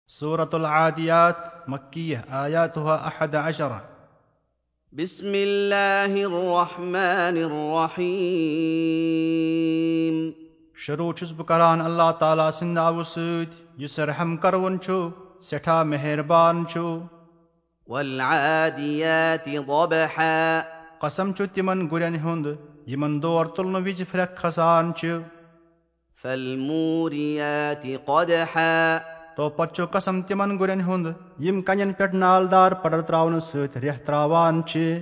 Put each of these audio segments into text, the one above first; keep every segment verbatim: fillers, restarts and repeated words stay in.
سورة العاديات، مكية، آياتها أحد عشر. بسم الله الرحمن الرحيم. شروع چھُس بہٕ کران اللہ تعالیٰ سٕنٛدِ ناوٕ سۭتۍ، یُس رحم کرون چھُ، سٮ۪ٹھاہ مہربان چھُ۔ والعاديات ضبحا۔ قسم چھُ تِمن گُرٮ۪ن ہُنٛد، یِمن دور تُلنہٕ وِزِ پھرٛکھ کھسان چھِ۔ فالموريات قدحا۔ تو پتہٕ چھُ قسم تِمن گُرٮ۪ن ہُنٛد، یِم کنٮ۪ن پٮ۪ٹھ نالدار پڈر تراونہٕ سۭتۍ ریٚہہ تراوان چھِ۔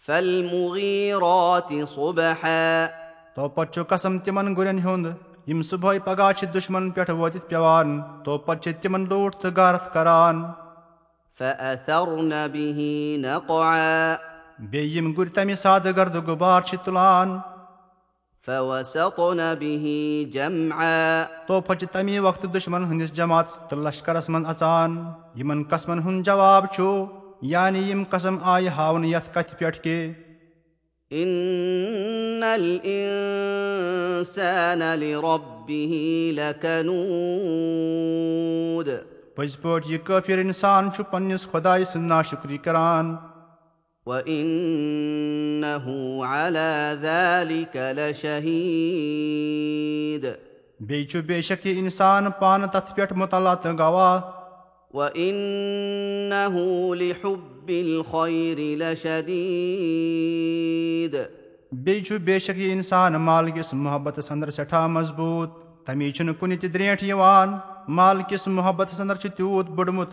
فالمغيرات صبحا۔ تو پتہٕ چھُ قسم تِمن گُرٮ۪ن ہُنٛد، یِم صبحٲے پگاہ چھِ دُشمن پٮ۪ٹھ وٲتِتھ پٮ۪وان، تو پتہٕ چھِ تِمن لوٗٹھ تہٕ غارت کران۔ فأثرن به نقعا۔ بیٚیہِ یِم گُرۍ تمہِ ساتہٕ گردٕ غُبار چھِ تُلان۔ فوسطن به جمعا۔ تو پتہٕ چھِ تمی وقتہٕ دُشمن ہٕنٛدِس جماعتس تہٕ لشکرس منٛز اژان۔ یِمن قسمن ہُنٛد جواب چھُ، یعنی یِم قسم آیہِ ہاونہٕ یتھ کتھِ پٮ۪ٹھ کہِ، إن الإنسان لربه لكنود۔ پٔزۍ پٲٹھۍ یہِ کٲفِر اِنسان چھُ پننِس خۄدایہِ سٕنٛز ناشُکری کران۔ وإنه على ذلك لشهيد۔ بیٚیہِ چھُ بے شک یہِ اِنسان پانہٕ تتھ پٮ۪ٹھ مطلع تہٕ گواہ۔ وإنه لحب الخير لشديد۔ بیٚیہِ چھُ بے شک یہِ اِنسان مال کِس محبتس اندر سٮ۪ٹھاہ مضبوٗط۔ تمی چھُنہٕ کُنہِ تہِ درٛینٛٹھ یِوان۔ مال کِس محبتس اندر چھُ تیوٗت بوٚڑمُت،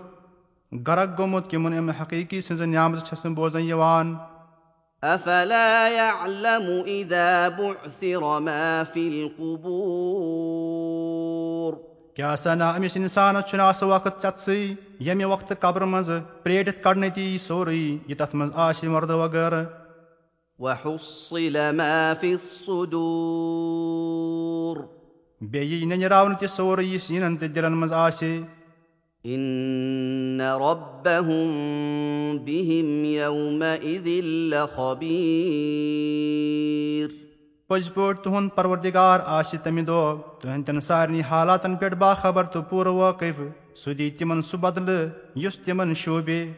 غرق گوٚمُت، کہِ یِمن امہِ حقیٖقی سٕنٛزٕ نعمژٕ چھَس نہٕ بوزنہٕ یِوان۔ أفلا يعلم إذا بعثر ما في القبور۔ کیٛاہ سا نا أمِس اِنسانس چھُنہٕ آسہٕ وقت ژٮ۪تسٕے، ییٚمہِ وقتہٕ قبرٕ منٛزٕ پرٛیٹِتھ کڑنہٕ تہِ یی سورُے، یہِ تتھ منٛز آسہِ مردٕ وغٲرٕ۔ وحصل ما في الصدور۔ بیٚیہِ یی ننیراونہٕ تہِ سورُے، یہِ سیٖنن تہٕ دِلن منٛز آسہِ۔ إن ربهم بهم يومئذ لخبير۔ پٔزۍ پٲٹھۍ تُہُنٛد پروردگار آسہِ تمہِ دۄہ تُہنٛدٮ۪ن سارنٕے حالاتن پٮ۪ٹھ باخبر تہٕ پوٗرٕ وٲقف۔ سُہ دِیہِ تِمن سُہ بدلہٕ، یُس تِمن شوٗبہِ۔